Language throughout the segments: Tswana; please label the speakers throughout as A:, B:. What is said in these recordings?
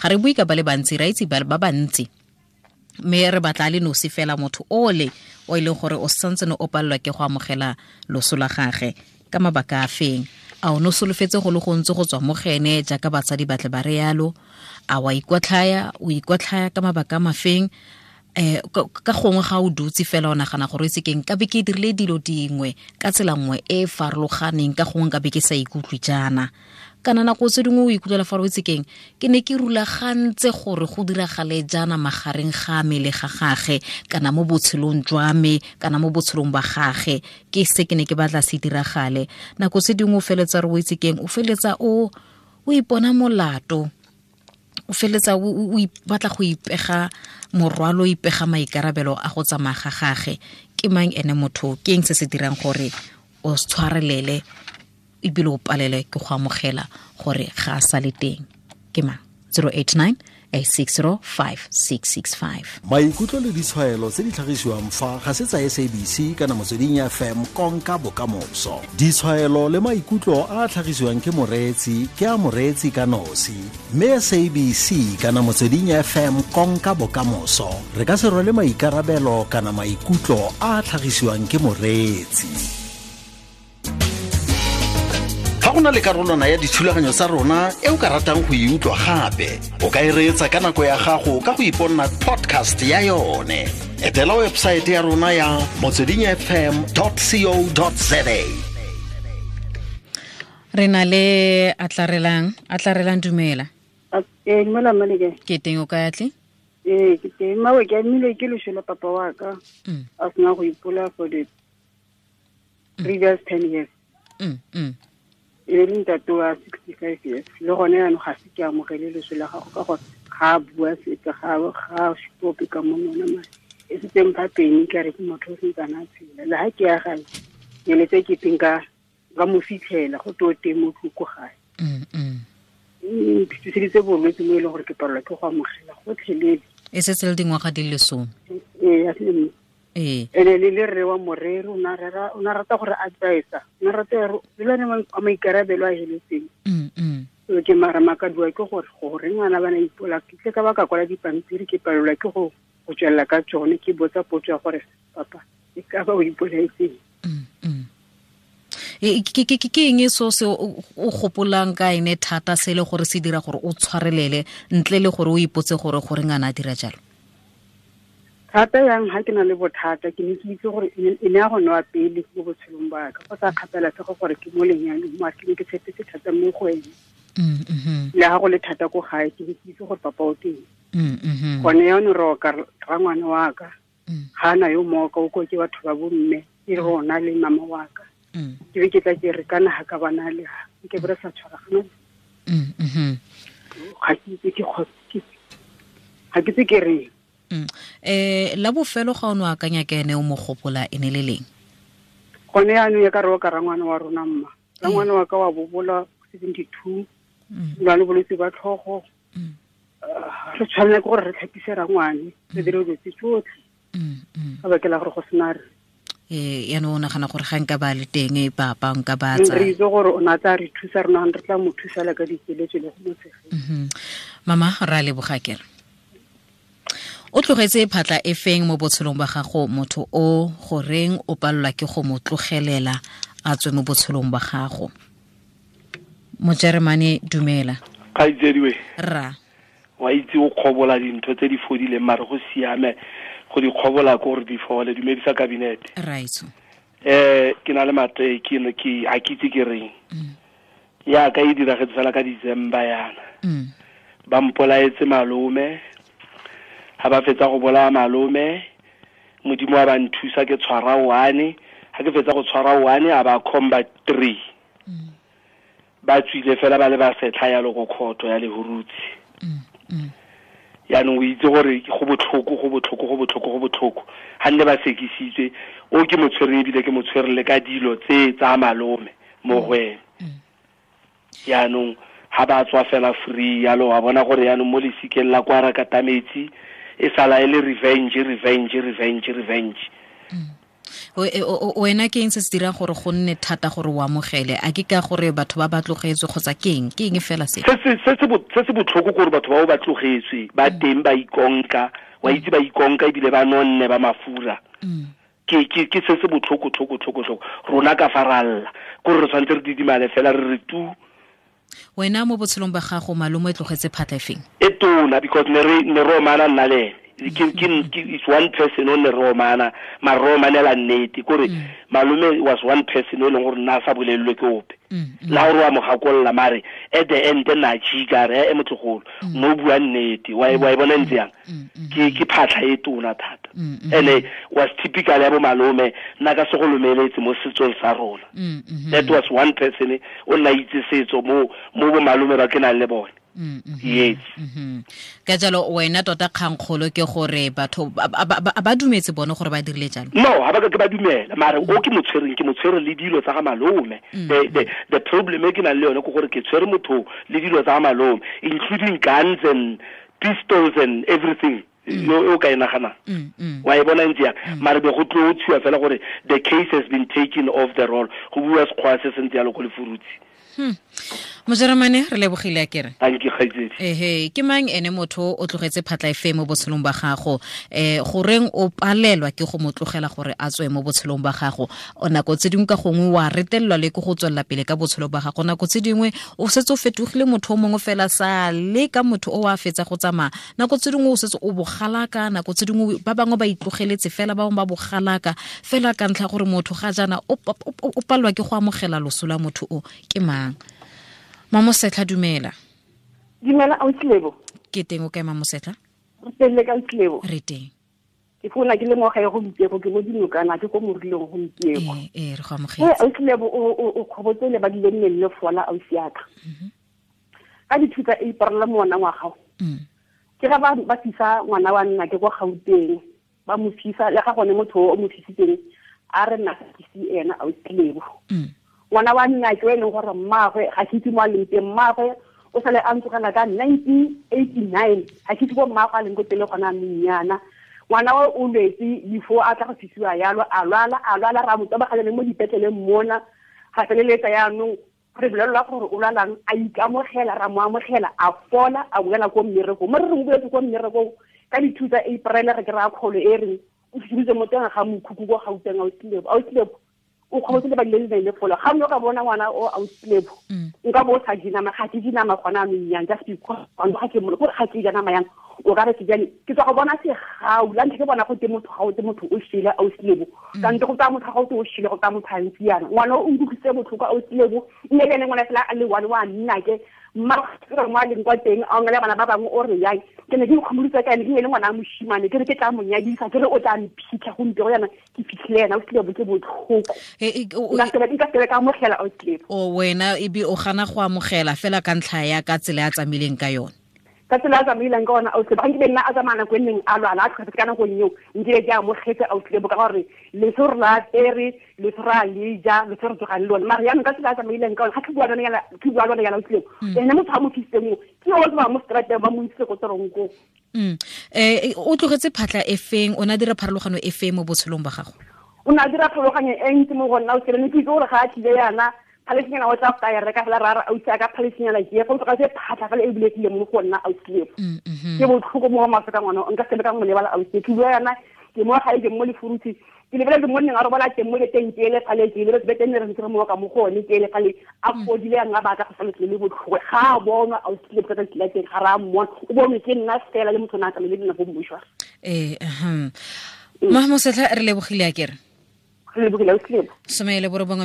A: Ga re bue ka ba le bantsi, ra itse ba bantsi, mme re batla le nosi fela motho ole o e leng gore o santse ne o palelwa ke go amogela loso la gage ka mabaka a feng. A o ne o solofetse go le gontsi go tswa mo gene jaaka batsadi batle ba re yalo? A wa ikotlhaya, o ikotlhaya ka mabaka a mafeng? Ka gongwe ga o dutse fela o nagana gore itse keng, ka be ke dirile dilo dingwe ka tsela nngwe e e farologaneng, ka gongwe ka be ke sa ikutlwe jaana. Kana nako tse dingwe o ikutlwela fa o itse keng, ke ne ke rulagantse gore go diragale jaana magareng ga me le ga gage, kana mo botshelong jwa me, kana mo botshelong ba gage, ke se ke ne ke batla se diragale. Nako tse dingwe o feletsa re o itse keng, o feletsa o ipona molato, o feletsa o batla go ipega morwalo, o ipega maikarabelo a go tsamaya ga gage. Ke mang ene motho? Ke eng se se dirang gore o tshwarelele ebile o palele ke go amogela gore ga a sa le teng? Ke mang? 089 860 5665.
B: Maikutlo le ditshwaelo tse di tlhagisiwang fa ga se tsa SABC kana Motsweding FM konka bokamoso. Ditshwaelo le maikutlo a a tlhagisiwang ke moreetsi ke a moreetsi ka nosi, mme SABC kana Motsweding FM konka bokamoso re ka se rwale maikarabelo kana maikutlo a a tlhagisiwang ke moreetsi. Fa go na le karolwana ya dithulaganyo tsa rona e o ka ratang go e utlwa gape, o ka e reetsa ka nako ya gago ka go iponna podcast ya yone. Etela website ya rona ya motswedingfm.co.za.
A: Re na le Atlarelang, dumela.
C: Dumela mmaleke.
A: Ke teng, o kae atle?
C: Ke teng. Mmawe, ke amilwe ke loso la papa wa ka. A sena go ipola for the previous 10 years. E le ntate wa 65 years. Le gone jaanong ga se ke amogele loso la gago ka gore ga a bua sepe, ga a supe ka monwana mare. E setse mpha peni ka re ke motho o sentsana a tshela. Le ha ke ya gae, ke letse ke teng ka mo fitlhela go tlo teng mo tloko gae. Mphitlheditse bolwetse mo e leng gore ke palelwa ke go amogela gotlhelele.
A: E setse le dingwaga di le 10.
C: Ee, a se Ene le le rre wa moreri, o na rata gore advise, o na rata gore le lone a maikarabelo a heletseng. So ke mara makadiwa ke gore gore ngwana bana ipola, ke tle ka ba ka kwala dipampiri, ke palelwa ke go tswelela ka tsone, ke botsa potso ya gore papa e ka ba o ipolaetseng.
A: Ke eng so se o gopolang ka ene thata se le gore se dira gore o tshwarelele ntle le gore o ipotse gore gore ngwana a dira jalo?
C: Thata yang ha ke na le bothata, ke ne ke itse gore e ne ya go nwa pele mo botshelong ba ka, go sa kgathalasege gore ke mo lenyalong, mare ke ne ke tshepetse thata mo go ene. Le ha go le thata ko gae, ke ne ke itse gore papa o teng. Gone jaanong re oka rangwane wa ka, ga ana yo mooka, o ko ke batho ba bo mme, ke rona le mama wa ka. Ke be ke tla ke re kana ha ka bana le ha, ke be re sa tshwaragana. Ga ke itse ke ga ke itse ke reng.
A: La bofelo ga o no akanya ke ene o mo gopola e ne le leng?
C: Gone jaanong ya ka re o ka rangwane wa rona mma. Rangwane wa ka wa bobola 72. Lwa le bolwetse ba tlhogo. Re tshwanela ke gore re tlhapise rangwane, re dire dilo tse tsotlhe. Ka baka la gore go sena re.
A: Yaanong o nagana gore ga nka ba le teng papa nka ba tsa.
C: Re itse gore o ne a tla re thusa, rona re tla mo thusa le ka dikeletso le go mo tshegetsa.
A: Mama, ra leboga kere. O tlogetse phatla e feng mo botshelong ba gago motho o goreng o palelwa ke go mo tlogelela a tswe mo botshelong ba gago? Mojeremane, dumela.
D: Kgaitsediwe.
A: Rra.
D: Wa itse o kgobola dintho tse di fodileng mare go siame go di kgobola ko gore di fole. Dumedisa kabinete.
A: Raitso.
D: Ke na le mate ke ne ke a ke itse ke reng. Ya ka e diragetse fela ka December yana. Ba mpolaetse malome. Ha ba fetsa go bolaya malome, Modimo wa ba nthusa ke tshwara 1. Ha ke fetsa go tshwara 1, a ba combat 3. Ba tswile fela ba le ba setlha ya go khotho ya Lehurutsi. Yaanong o itse gore go botlhoko, go botlhoko, go botlhoko, go botlhoko. Ha nne ba sekisitswe, o ke motshwere ebile ke motshwere le ka dilo tse tsa malome mo go ene. Yaanong ha ba tswa fela free yalo, wa bona gore yaanong mo lesikeng la kwa Rakatametsi e sala e le revenge, revenge, revenge, revenge.
A: Wena ke eng se se dirang gore go nne thata gore o amogele? A ke ka gore batho ba ba tlogetswe kgotsa ke eng? Ke eng fela se?
D: Se se botlhoko gore batho bao ba tlogetswe ba teng ba ikonka, wa itse ba ikonka ebile ba nonne ba mafura. Ke se se botlhoko tlhoko tlhoko tlhoko. Rona ka faralla gore re tshwanetse re didimale fela re re tu.
A: Wena mo botshelong ba gago malome e tlogetse phatla efeng?
D: E tona, because ne re omana nna le ene. It's one person o ne re omana, mara re omanela nnete. Kore malome was one person o leng gore nna a sa bolelelwe ke ope. La gore wa mo gakolola mare at the end na jika re e motlogolo no bua nnete wa e bona ntse yang. Ke phatlha e tona thata. Ene was typical ya bo malome nna ka se go lomeletse mo setsong sa rona. That was one person o nna itse setso mo bo malome ba ke nang le bone. Yes.
A: Ka jalo wena tota kgangkgolo ke gore batho ba dumetse bone gore ba dirile jalo?
D: No, ha ba ka ke ba dumela, mare o ke motshwereng, ke motshwere le dilo tsa ga malome. The problem e ke nang le yone ke gore ke tshwere motho le dilo tsa ga malome, including guns and pistols and everything. Yo o ka e naganang. Wa e bona ntse yang. Mare be go tlo tshiwa fela gore the case has been taken off the roll. Go bua sekgwa se se ntse yalo ko Lefurutsi.
A: Mojeremane re lebogile a kere.
D: Thank you kgaitsedi.
A: Ehe, ke mang ene motho o tlogetse phatla efe mo botshelong ba gago? Goreng o palelwa ke go mo tlogela gore a tswe mo botshelong ba gago? O nako tse dingwe ka gongwe wa retelelwa le ke go tswelela pele ka botshelo ba gago. Nako tse dingwe o setse o fetogile motho o mongwe fela sa le ka motho o a fetsa go tsamaya. Nako tse dingwe o setse o bogalaka, nako tse dingwe ba bangwe ba itlogeletse fela, ba bangwe ba bogalaka fela ka ntlha gore motho ga jaana o palelwa ke go amogela loso la motho o ke mang? Mamosetlha, dumela.
C: Dumela Autlebo.
A: Ke teng o kae Mamosetlha?
C: Re teng le ka Autlebo.
A: Re teng.
C: Ke founa ke le mo gae gompieno, ke mo dinokana, ke ko morileng gompieno.
A: Ee, re go amogetse.
C: Autlebo o kgobotse le ba dile nne le fola ausi ya ka. Ka dithuta e iparela ngwana wa gago. Ke ga ba fisa ngwana wa nna ke kwa Gauteng, ba mo fisa le ga gone motho o mo fisitseng a re nna ke se ena Autlebo. Ngwana wa nna ke e leng gore mmaagwe ga ke itse mo a leng teng, mmaagwe o sale a ntsogela ka 1989, ga ke itse ko mmaagwe a leng ko tele gona anong yana. Ngwana o o lwetse before a tla go fisiwa yalo, a lwala ra mo tobaganya mo dipetleleng mona, ga feleletsa yaanong re bolelelwa gore o lwalang, a ikamogela, ra mo amogela, a fola, a boela ko mmerekong. Mo re re mo boetse ko mmerekong ka dithusa April re kry-a kgolo e reng o fitlhile mo teng ga mokhukhu ko Gauteng. Autlebo o kgobotse le ba dile le fola. Ga o ka bona ngwana o Autlebo, nka bo o sa je nama, ga ke je nama gona anong yang, just because ga ke mo gore ga ke ja nama yang, o ka re ke jane ke tswa go bona segau la ntlha ke bona go te motho ga o te motho o shile Autlebo, kante go tsaya motho ga o te o shile go tsaya motho a ntse yana. Ngwana o nkutlwisitse botlhoko Autlebo, mme le ene ngwana fela a le one wa nna ke mma re mo a leng kwa teng a ongela bana ba bangwe o re yang ke ne ke ikgomoditse ka ene, ke ne le ngwana a moshimane, ke re ke tla mo nyadisa, ke re o tla mphitlha gompieno yana ke fitlhile ena Autlebo, ke botlhoko. Nka sebe ka amogela Autlebo.
A: O wena ebe o gana go amogela fela ka ntlha ya ka tsela ya tsamaileng ka yone.
C: Ka tsela a tsamaileng ka yona Autlebo, ga nkile nna a tsamaya nako e neng a lwala a tlhokafetse ka nako eo, nkile ke amogetse Autlebo ka gore leso re la apere, leso re a le ja, leso re tsogang le lone. Mare jaanong ka tsela a tsamaileng ka yone, ga ke bua lone yana Autlebo, ene motho a mo fisitseng o, ke yo o tsamaya mo strateng ba mo isitse ko toronkong.
A: O tlogetse phatla e feng, o ne a dira pharologano e feng mo botshelong ba gago?
C: O ne a dira pharologanyo e ntsi mo go nna Autlebo, ne ke itse gore ga a tlile yana phalesinyana o tla go ka e reka fela ra re ausi a ka phalesinyana ke e fa o tlogetse phatlha fela e bulegile mo go nna Autlebo. Ke botlhoko mo go maswe ka ngwana, nka sebe ka mo lebala Autlebo. Ke bua yana ke mo gae ke mo Lefurutse, ke lebeletse mo nneng a robala teng mo beteng ke ele fale, ke lebeletse bete nne re ntse re mo ka mo go one ke ele fale, a fodile yang a batla go sa letle le botlhoko. Ga a bonwa Autlebo ka tsatsi la teng, ga re a mmona, o bonwe ke nna fela le motho o ne a tsamaile le nna ko mmošware.
A: Mamosetlha re lebogile a kere.
C: 19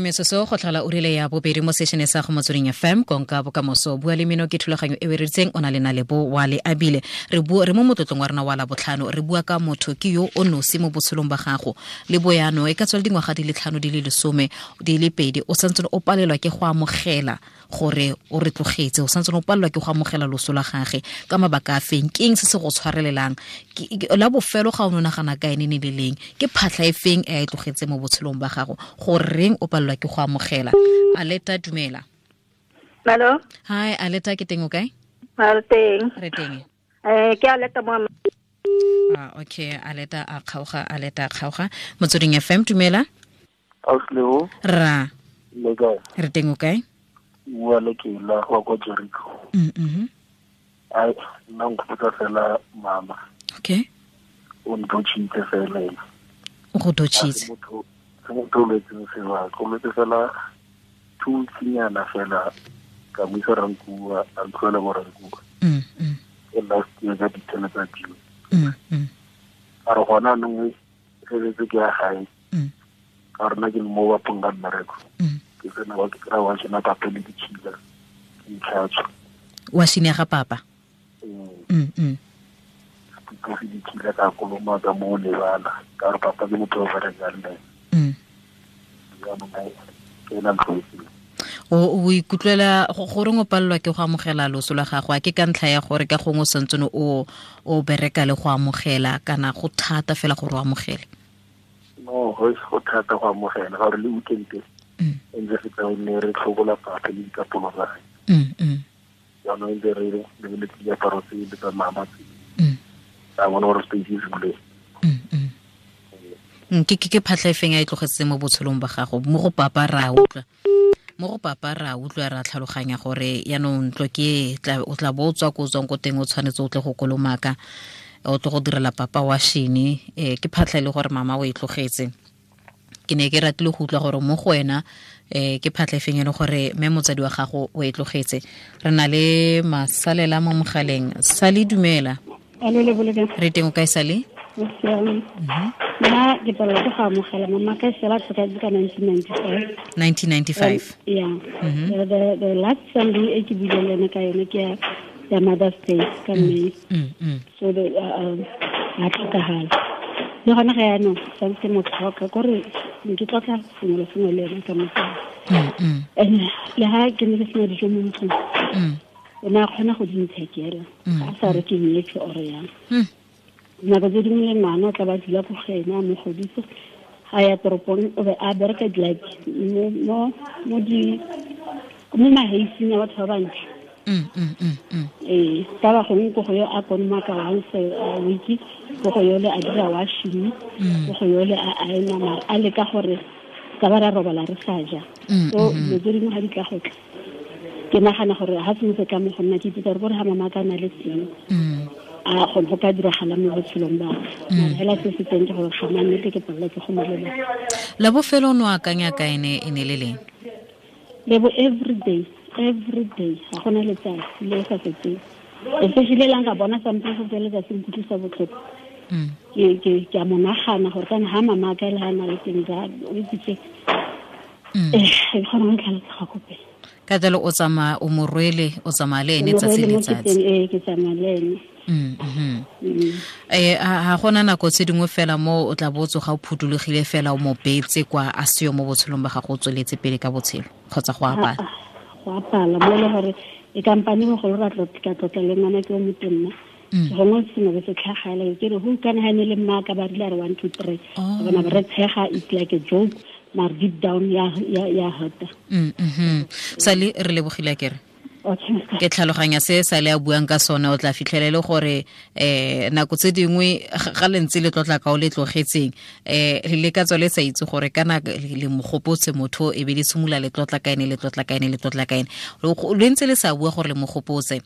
A: metsotso go tlhola ura ya bobedi mo sešene sa go Motsweding FM konka bokamoso. Bua le mino ke thulaganyo e reditseng o na le Nalebo wa le abile. Re bua re mo motlotlong wa rena wa la botlhano, re bua ka motho ke yo o nosi mo botshelong ba gago. Le boyano e ka tswa le dingwaga di le 5 di le 10 di le 2, o santse o palelwa ke go amogela gore o re tlogetse, o santse o palelwa ke go amogela loso la gagwe ka mabaka a feng? Ke eng se se go tshwarelelang? La bofelo ga o nagana ka ene ne le leng? Ke phatlha e feng e a e tlogetse mo botshelong ba gago? Goreng o palelwa ke go amogela? Aleta, dumela.
E: Hello.
A: Hi Aleta, ke teng o kae?
E: Re teng.
A: Re teng.
E: Ke Aleta mo.
A: Okay, aleta a kgaoga. Motsweding FM, dumela.
E: Ausleo.
A: Ra.
E: Le kae?
A: Re teng o kae?
E: Bua le ke la go kwa Jericho. Ai, nna nkgopotsa fela mama.
A: Okay.
E: O ntotšhitse fela ena.
A: O go totšhitse.
E: Se motho o lwetseng sebaka, o lwetse fela 2 weeks-nyana fela ka mo isa Rankuwa, a ntlhoela mo Rankuwa. E last year ka di-10 tsa June. A re gona anong feletse ke ya gae. Ka rona ke le mo bapong ka mmereko. Ke tsena wa ke kry-a wa shena papa le ditšhila, ke itlhatswa.
A: Wa shine ga papa?
E: Ke se ditšhila ka koloma ka mo lebala, ka re papa ke motho o berekang le ene. Jaanong ke ena ntlhoetseng.
A: O ikutlwela goreng o palelwa ke go amogela loso la gago? A ke ka ntlha ya gore ka gongwe o santsene o bereka le go amogela, kana go thata fela gore o amogele?
E: No, go thata go amogela, ga gore le weekend e ntse re tla nne re tlhobola papa le dikapolo tsa gagwe. Jaanong ntse re lebeletse diaparo tse le tsa mama tse. Ka bona gore space e se buleng.
A: Ke phatlha e feng a e tlogetse mo botshelong ba gago? Mo go papa ra utlwa. Mo go papa ra utlwa, ra tlhaloganya gore yaanong ntlo ke o tla bo o tswa ko o tswang ko teng, o tshwanetse o tle go kolomaka, o tle go direla papa wa shene. Ke phatlha e le gore mama o e tlogetse. Ke ne ke ratile go utlwa gore mo go wena ke phatlha e feng e le gore mme motsadi wa gago o e tlogetse. Re na le masalela mo mogaleng. Sale, dumela. Re teng o kae, Sale?
F: Nna ke palelwa ke go amogela mama ka sela tlhokahetse ka 1995.
A: 1995.
F: Yeah. The last Sunday e ke buileng le ene ka yone ke ya Mother's Day ka May. So the a tlhokagala. Le gona ga yaanong santse ke mo tlhoka, kore ke tlotla sengwe le sengwe le ene ka mogala. And le ha ke ne ke sena dijo mo ntlong, o ne a kgona go di nthekela, a sa re ke nyetswe or yang. Nako tse dingwe le ngwana o tla ba dula ko go ene a mo godisa, ga ya toropong o be a bereka like mo maheising a batho ba bantle. Ee, ka ba gongwe ko go yo a kolomaka once a week, ko go yole a dira washing, ko go yole a aena, mara a leka gore ka ba ra robala re sa ja. So dilo tse dingwe ga di tla go tla, ke nagana gore ga sengwe se tla mo go nna, ke ipotsa gore ga mama ka na le teng, a go ka diragala mo botshelong ba ka. Fela se se teng ke gore ga ma nnete ke palelwa ke go mo lebala.
A: La bofelo o ne o akanya ka ene e ne le leng?
F: Lebo, every day, ga gona letsatsi le sa fetseng. Especially la nka bona something se se letsatsi nkutlwisa botlhoko. Ke a mo nagana gore kana ha mama ka le ha na le teng ja, o itse ke kgona go tlhalosa ga kope.
A: Ka jalo o tsamaya o mo rwele, o tsamaya le ene tsatsi le letsatsi.
F: Ee, ke tsamaya le ene.
A: Ha gona nako tse dingwe fela mo o tla bo tsoga o phuthologile fela o mo beetse kwa a seo mo botshelong ba gago, o tsweletse pele ka botshelo kgotsa go apala?
F: Go apala mo e le gore e kampane bogolo ra tlotla le ngwana ke o motonna. Gongwe sengwe se tlhagala ke re go kana ha ne le mma ka ba rile re 1 2 3. Bona ba re tshega, it's like a joke, mara deep down ya hurta.
A: Sale, re lebogile akere. Ke tlhaloganya se Sale a buang ka sone, o tla fitlhela le gore nako tse dingwe ga le ntse le tlotla ka o le tlogetseng, le ka tswa le sa itse gore kana le mogopotse motho, e be le simolola le tlotla ka ene, le tlotla ka ene, le tlotla ka ene, le ntse le sa bua gore le mogopotse,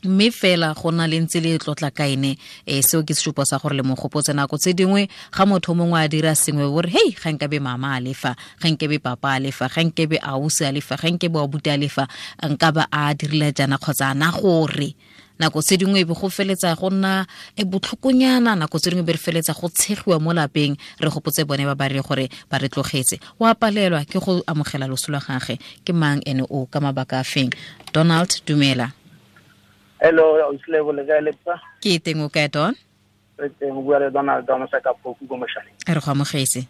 A: mme fela go na le ntse le tlotla ka ene. Seo ke sesupo sa gore le mogopotse. Nako tse dingwe ga motho mongwe a dira sengwe o re hei, ga nkabe mama a lefa, ga nkabe papa a lefa, ga nkabe ausi a lefa, ga nkabe abuti a lefa, nka ba a dirile jaana kgotsa ana gore. Nako tse dingwe e be go feletsa go nna e botlhokonyana, nako tse dingwe be re feletsa go tshegiwa mo lapeng, re gopotse bone ba ba re gore ba re tlogetse. O a palelwa ke go amogela loso la gagwe. Ke mang ene o ka mabaka a feng? Donald, dumela.
G: Hello, Auslebo, le kae lepsa?
A: Ke teng, o kae, Don?
G: Re teng, o bua le Donald wa Mosaka Phoku ko Mošaleng.
A: Re go amogetse.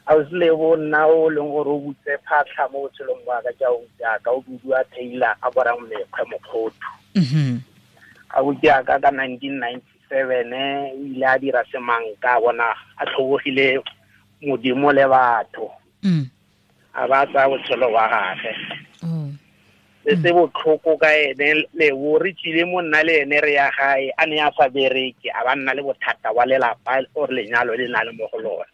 G: Auslebo, nna o leng gore o butse phatlha mo botshelong ba ka, ke a o jaaka o bidiwa Taylor a borang mekgwe mokgothu. A butse ka ka 1997, o ile a dira semanka, bona a tlhobogile modimo le batho. A ba tsaya botshelo ba gagwe. Se se botlhoko ka ene Lebo, re tsile mo nna le ene re ya gae, a ne a sa bereke, a ba nna le bothata wa lelapa or lenyalo le na le mo go lone.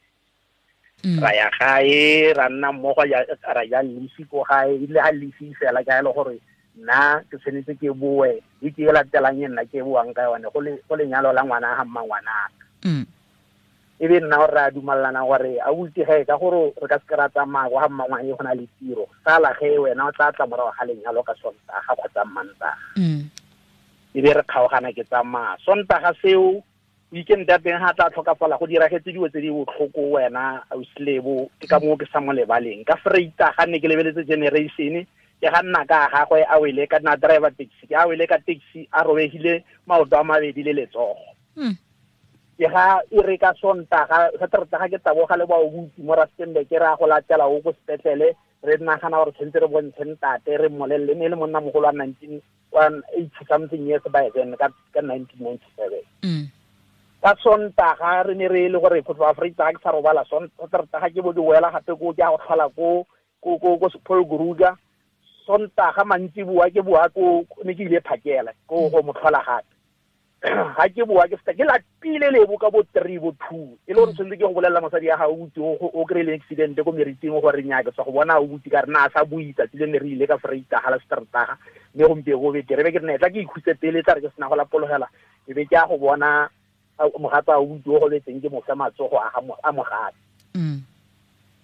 G: Ra ya gae, ra nna mmogo, ra ja lefi ko gae, ebile ga lefi fela ka e le gore nna ke tshwanetse ke boe, e ke e latelang e nna ke boang ka yone go lenyalo la ngwana ga mmangwanaka. E be nna gore re a dumalana gore a butse ge ka gore re ka se ra tsamaya go ga mmangwane go na le tiro, sala ge wena o tla tla morago ga lenyalo ka Sontaga kgotsa Mantaga. E be re kgaogana ke tsamaya Sontaga seo, weekend ya teng ga tla tlhokafala, go diragetse dilo tse di botlhoko wena ausi Lebo, ke ka moo ke sa mo lebaleng. Ka Vrydag ne ke lebeletse Generation, ke ga nna ka gagwe a wele ka nna driver taxi, ke a wele ka taxi a robegile maoto a mabedi le letsogo. Ke ga e re ka Sontaga, Sateretaga ke taboga le baobuti mo Rustenburg, ke re a go latela o ko sepetlele, re nagana gore tshwanetse re bontshe ntate, re mmolelele, ne e le monnamogolo wa nineteen one eighty something years by then, ka 1997. Ka Sontaga re ne re le gore go tloga Vrydag ke sa robala, Sateretaga ke bo ke boela gape ko ke a go tlhola ko Paul Kruger. Sontaga mantsiboa ke boa ko, ne ke ile phakela ko go mo tlhola gape. Ga ke boa ke feta ke lapile Lebo ka bo 3 bo 2, e le gore tshwanetse ke go bolelela mosadi ya gago o o kry-ile accident ko meriting gore nnyaa ke tswa go bona o butse ka re na a sa bue tsatsi le ne re ile ka Vrydag la Sateretaga, mme gompieno go betere. Be ke re ne tla ke ikhutse pele, tla re ke sena go lapologela, e be ke a go bona mogatsa o butse o gobetseng ke mo fe matsogo a ga a mogatse.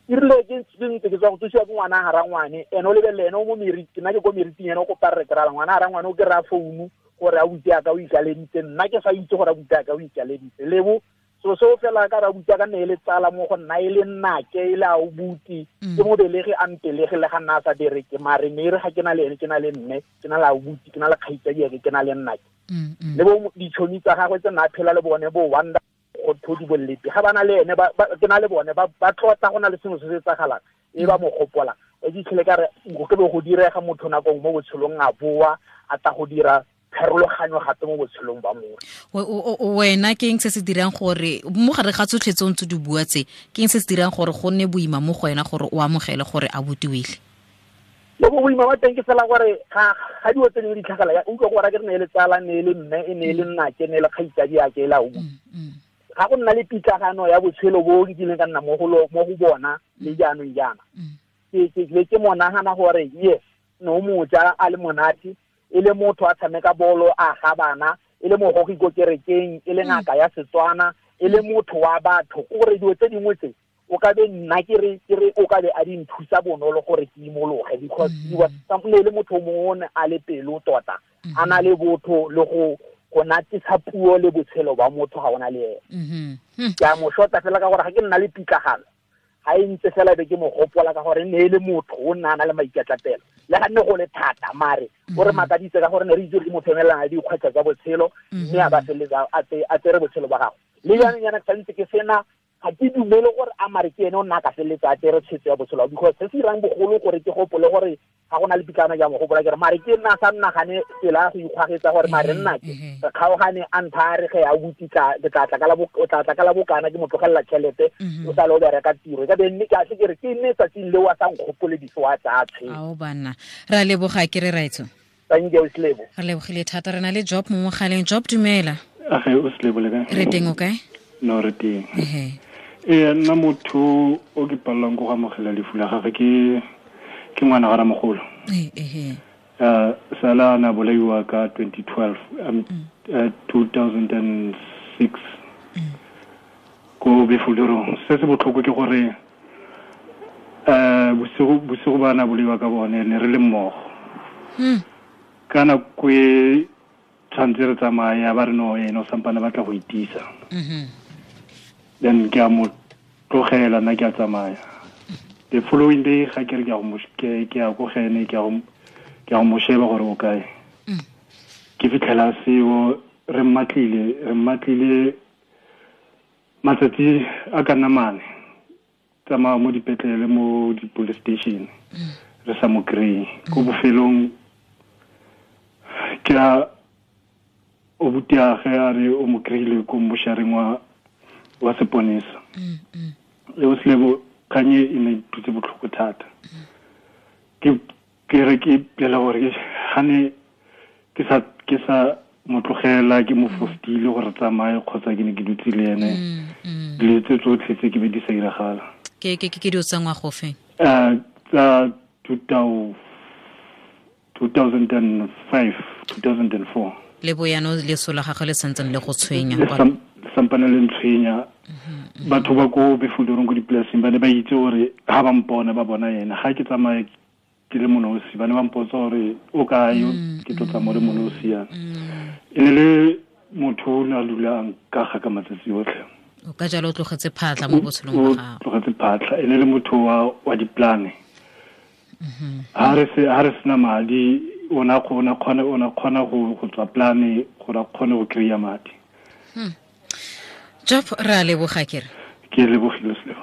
G: E rile ke ntse ke tswa go thusiwa ke ngwana ga rangwane, ene o lebelele ene o mo meriti, nna ke ko meriting, ene o kopa re kry-a ngwana ga rangwane o kry-a founu gore a butse ka o ikaleditse, nna ke sa itse gore a butse ka o ikaleditse. Lebo so seo fela ka ra butse ka nne e le tsala mo go nna, e le nnake, e le a o buti, ke mo belege a mpelege le ga nna a sa bereke, mare ne e re ga ke na le ene, ke na le mme, ke na le a o buti, ke na le kgaitsadiake, ke na le nnake. Le bo ditšhomi tsa gagwe tse nna a phela le bone bo Wanda go thodi bollepi, ga ba na le ene, ke na le bone, ba tlotla go na le sengwe se se etsagalang, e ba mo gopola. O fitlhele ka re go ke be go direga motho nakong mo botshelong a boa, a tla go dira pharologanyo gape mo botshelong ba motho.
A: Wena ke eng se se dirang gore mo gare ga tsotlhe tse o ntse di bua tse, ke eng se se dirang gore go nne boima mo go wena gore o amogele gore a botiwile?
G: Le bo boima ba teng ke fela gore ga dilo tse dingwe di tlhagela, ya utlwa gore ke re ne e le tsala, ne e le mme, e ne e le nnake, ne e le kgaitsadi ya ke e la o. Ga go nna le pitlagano ya botshelo bo ke kileng ka nna mo go mo go bona le jaanong jaana. Ke mo nagana gore yes, no moja a le monate, e le motho a tshameka bolo, a ga bana, e le mogogi ko kerekeng, e le ngaka ya Setswana, e le motho wa batho. Gore dilo tse dingwe tse o ka be nna ke re o ka be a di nthusa bonolo gore ke imologe, because he was ne le motho mongwe o ne a le pelo tota, a na le botho le go natisa puo le botshelo ba motho ga ona le ene. Ke a mo shota fela ka gore ga ke nna le pitlagano, ga e ntse fela be ke mo gopola ka gore ne e le motho o nna a na le maikatlapelo, le ga nne go le thata, mare o re makaditse ka gore ne re itse gore ke motho emelelana le dikgwetlho tsa botshelo, mme a ba feleletsa a tsere botshelo ba gagwe. Le jaanong jaana ke santse ke sena, ga ke dumele gore a mare ke ene o nna a ka feleletsa a tsere tshwetso ya botshelo, because se se dirang bogolo gore ke gopole gore ga go na le pitlana ja mo gopola ke re mare ke nna sa nnagane tsela ya go ikgwagetsa gore mare nna ke re kgaogane a ntha a re ge a butse ke tla tla ka la o tla tla ka la bokana ke mo tlogelela tšhelete, o sa le o bereka tiro. E ka be nne ke a se ke re ke nne tsatsing leo a sa nkgopole diso a tsaya tshwetso.
A: Ao banna, re a leboga ke re raitso.
G: Thank you, Slebo.
A: Re lebogile thata, re na le Job mo mogaleng. Job, dumela.
H: Age, o Slebo le kae?
A: Re teng, o kae?
H: No, re teng. Ee, nna motho o ke palelwang ke go amogela lefu la gagwe ke ngwana ga ramogolo. Sala a na bolaiwa ka 2012, 2006 ko Befulerong. Se se botlhoko ke gore bosigo ba na bolaiwa ka bone ne re le mmogo. Ka nako e tshwanetse re tsamaya ba re no ene o sampane batla go itisa. Then ke a mo tlogela nna ke a tsamaya. The following day ga ke re ke a go ke a go gene ke a go mo sheba gore o kae. Ke fitlhela seo re mmatlile matsatsi a ka nna mane, tsamaya mo dipetlele mo di-police station re sa mo kry-e. Ko bofelong ke a o butiage a re o mo kry-ile ko mmošareng wa seponesa. Le o Slebo, kganye e ne e dutse botlhoko thata. Ke Ke re ke pela gore gane ke sa mo tlogela ke mo fostile gore tsamaye kgotsa ke ne ke dutse le ene. Dilo tse tsotlhe tse ke be di sa iragala.
A: Ke dilo tsa ngwaga ofe?
H: Tsa 2005, 2004.
A: Le boyano leso la gagwe le santseng le go tshwenya.
H: Sampane le ntshwenya. Batho ba ko Befulderong ko dipolaseng ba ne ba itse gore ha ba mpona ba bona ena. Ga ke tsamaye ke le monosi ba ne ba mpotsa gore o kae, ke tlo tsamaya le monosi yana. E ne le motho o ne a dulang ka ga ka matsatsi otlhe.
A: O ka jalo o tlogetse phatlha mo botshelong ba gago.
H: O tlogetse phatlha, e ne le motho wa diplane. Ha re sena madi, o na kgona go tswa plane gore a kgone go kry-a madi.
A: Job, re a leboga kere.
H: Ke lebogile Selebo.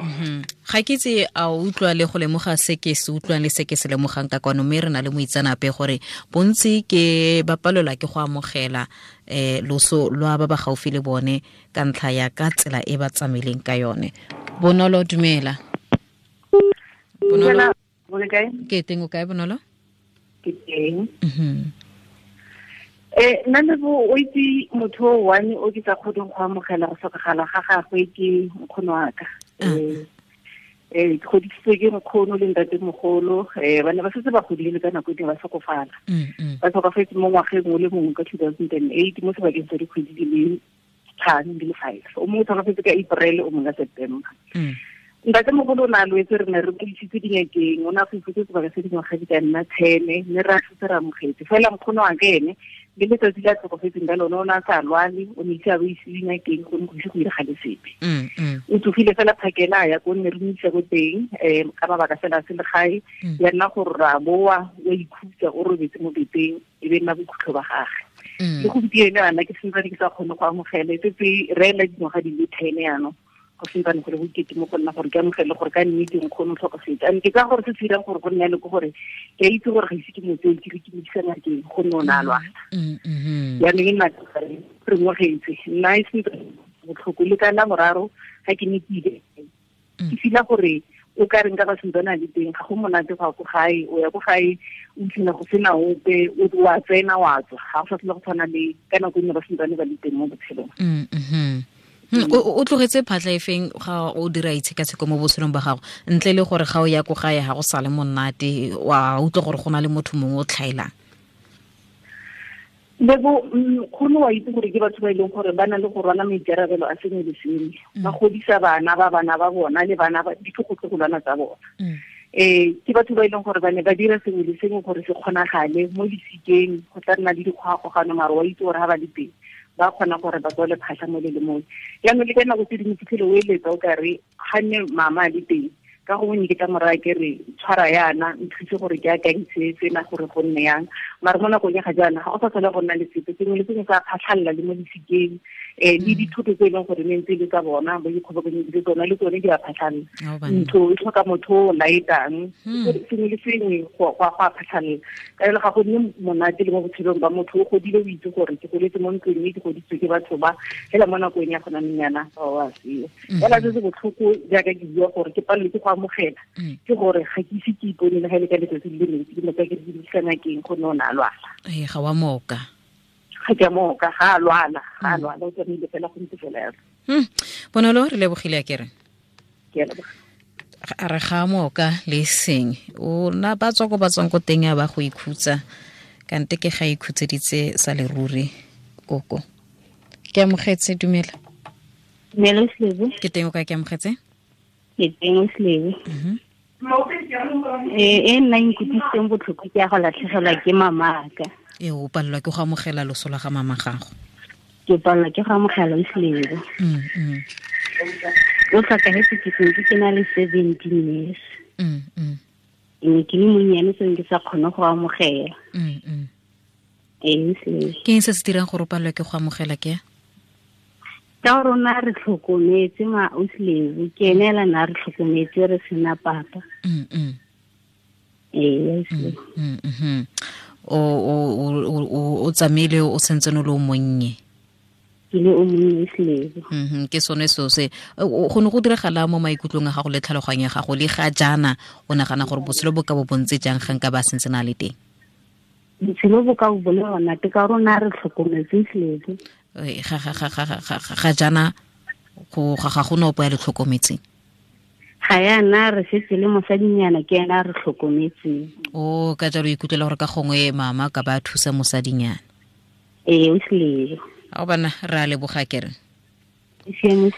A: Ga ke itse a o utlwa le go lemoga se ke se utlwang le se ke se lemogang ka kwano, mme re na le moitseanape gore bontsi ke ba palelwa ke go amogela loso lwa ba ba gaufi le bone ka ntlha ya ka tsela e ba tsamaileng ka yone. Bonolo, dumela. Bonolo, ke teng o kae Bonolo?
I: Ke teng. Nna Lebo, o itse motho o one o ke sa kgoneng go amogela go tlhokagala ga gagwe ke nkgono wa ka. Ke godisitswe ke nkgono le ntatemogolo, ba ne ba setse ba godile ka nako e ne ba tlhokofala. Ba tlhokafetse mo ngwageng o le mongwe ka 2008 mo sebakeng sa dikgwedi di le 5 di le 5. O mongwe o tlhokafetse ka April, o mongwe ka September. Ntatemogolo o ne a lwetse, re ne re mo isitse dingakeng, o ne a go ifutse sebaka se dingwaga di ka nna 10, mme re a setse re amogetse. Fela nkgono wa ka ene le letsatsi le a tlhokofetseng ka lone o ne a sa lwale, o ne ise a bo ise dingakeng, go ne go ise go iragale sepe. O tsogile fela phakela a ya ko nne re mo isa ko teng, ka mabaka fela a selegae, ya nna gore re a boa, o a ikhutsa, o robetse mo beteng, e be nna bokhutlo ba gagwe. Le gompieno yana ke santsane ke sa kgone go amogela, e setse re ela dingwaga di le 10 yanong. Go santsane go le bokete mo go nna gore ke amogele gore ka nnete nkgono o tlhokafetse. And ke ka gore se se dirang gore go nne le ke gore ke a itse gore ga ise ke mo tseye ke re ke mo isa ngakeng, gonne o ne a lwala. Jaanong e nna re ngwagetse, nna e sentse botlhoko le ka la boraro ga ke ne ke ile. Ke feel-a gore o ka reng ka ba santsane a le teng, ga go monate go ya ko gae, o ya ko gae o fitlhela go sena ope, o a tsena wa tswa, ga go sa tlhole go tshwana le ka nako e ne ba santsane ba le teng mo botshelong.
A: O tlogetse phatlha e feng ga o dira itshekatsheko mo botshelong ba gago, ntle le gore ga o ya ko gae ga go sale monate, wa utlwa gore go na le motho mongwe o tlhaelang?
I: Lebo, nkgono wa itse gore ke batho ba e leng gore ba na le go rwala maikarabelo a sengwe le sengwe. Ba godisa bana ba bana ba bona le bana ba ditlogolwana tsa bona. Ke batho ba e leng gore ba ne ba dira sengwe le sengwe gore se kgonagale mo disikeng, go tla nna le dikgogakgogano, mare wa itse gore ga ba le teng ba kgona gore ba tswale phatlha mo le le mongwe. Jaanong le ka nako tse dingwe fitlhele o eletsa o kare ga nne mama a le teng, ka gongwe ne ke tla mo raya ke re tshwara yana, nthuse gore ke akantse tsena gore go nne yang. Mare mo nakong ya ga jaana ga go sa tlhole go nna le sepe, sengwe le sengwe sa phatlhalela le mo disikeng, le dithoto tse e leng gore ne ntse e le tsa bona, ba ikgobokanyeditse tsona le tsone di a phatlhalela. Ntho e tlhoka motho o laetang, sengwe le sengwe go a phatlhalela. Ka jalo ga go nne monate le mo botshelong ba motho, o godile o itse gore ke goletse mo ntlong e ke godisitswe ke batho ba, fela mo nakong ya gona nyana ba wa seo. Fela se se botlhoko jaaka ke bua gore ke palelwe ke go amogela, ke gore ga ke ise ke ipone le ga e le ka letsatsi le le ntsi ke mo tsaya ke re ke ngakeng, gonne o ne a lwala.
A: Ga wa moka.
I: Ga ke a moka, ga a lwala, o tsamaile fela go ntse fela yalo.
A: Bonolo, re lebogile a kere.
I: Ke a leboga.
A: A re ga moka le seng, o na ba tswa ko ba tswang ko teng ya ba go ikhutsa, kante ke ga ikhutseditse sa leruri koko. Ke amogetse, dumela.
F: Dumela Selebo.
A: Ke teng o kae, ke amogetse?
F: Ke teng Selebo. E nna nkutlwisitseng botlhoko ke ya go latlhegelwa ke mamaka.
A: O palelwa ke go amogela loso la ga mama gago.
F: Ke palelwa ke go amogela Selebo. O tlhokafetse ke sentse ke na le 17 years. Ke ne ke le monnyane, seng ke sa kgone go amogela.
A: Ke eng se se dirang gore o palelwe ke go amogela ke?
F: Ka rona re tlhokometse ma Auslebo, ke ene ela na re tlhokometse re sena papa.
A: O tsamaile o sentse o le o monnye.
F: Ke le o monnye Selebo.
A: Ke sone seo se go ne go diragala mo maikutlong a gago le tlhaloganyo ya gago le ga jaana o nagana gore botshelo bo ka bo bontse jang ga nka ba sentse na le teng?
F: Botshelo bo ka bo le monate ka rona re tlhokometse Selebo.
A: Ga jaana go ga go no opo ya le tlhokometseng?
F: Ga yana re setse le mosadinyana ke ena re tlhokometseng.
A: O ka jalo ikutlwela gore ka gongwe mama ka ba thusa mosadinyana.
F: Ee, o Selebo.
A: A bana re a leboga kere.
F: Siame.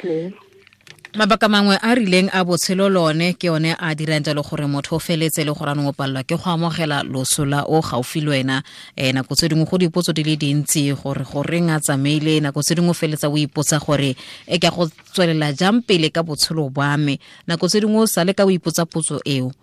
A: Mabaka mangwe a rileng a botshelo lone ke one a dirang jalo gore motho o feletse le gore a nong o palelwa ke go amogela loso la o gaufi le wena. Nako tse dingwe go dipotso di le dintsi gore goreng a tsamaile, nako tse dingwe o feletsa o ipotsa gore e ke go tswelela jang pele ka botshelo ba me, nako tse dingwe o sale ka o ipotsa potso eo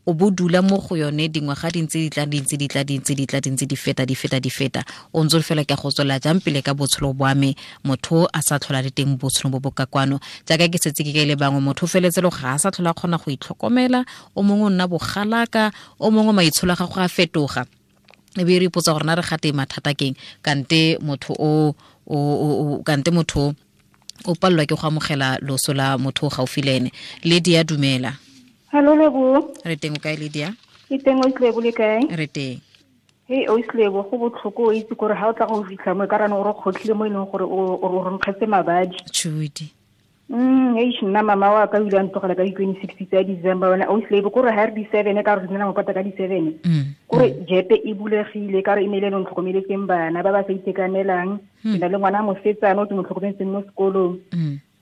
A: o bo dula mo go yone dingwaga di ntse di tla di ntse di tla di ntse di tla di ntse di feta di feta di feta, o ntse fela ke go tswela jang pele ka botshelo bwa me motho a sa tlhola le teng botshelo bo bo ka kwano. Jaaka ke setse ke kaile bangwe, motho feletse le ga a sa tlhola kgona go itlhokomela, o mongwe o nna bogalaka, o mongwe maitsholo a gago a fetoga, e be re ipotsa gore na re gate mathata keng kante motho o kante motho o palelwa ke go amogela loso la motho o gaufi le ene. Lydia, dumela.
J: Hello Lebo.
A: Re teng o kae Lydia?
J: Ke teng o Selebo, le kae?
A: Re teng.
J: Hey o Selebo, go botlhoko o itse gore ha o tla go fitlha mo e ka rane o re kgotlhile mo e leng gore o re nkgetse mabadi.
A: Tshudi.
J: Eish nna mama wa ka o ile a ntlogela ka di-26 tsa December wena o Selebo, kore ha re di-7 ka re nna mopata ka di-7. Kore jepe e bulegile ka re e ne le ntlhokomeletseng bana ba ba sa itekanelang. Ke na le ngwana mosetsana o ke mo tlhokometseng mo sekolong.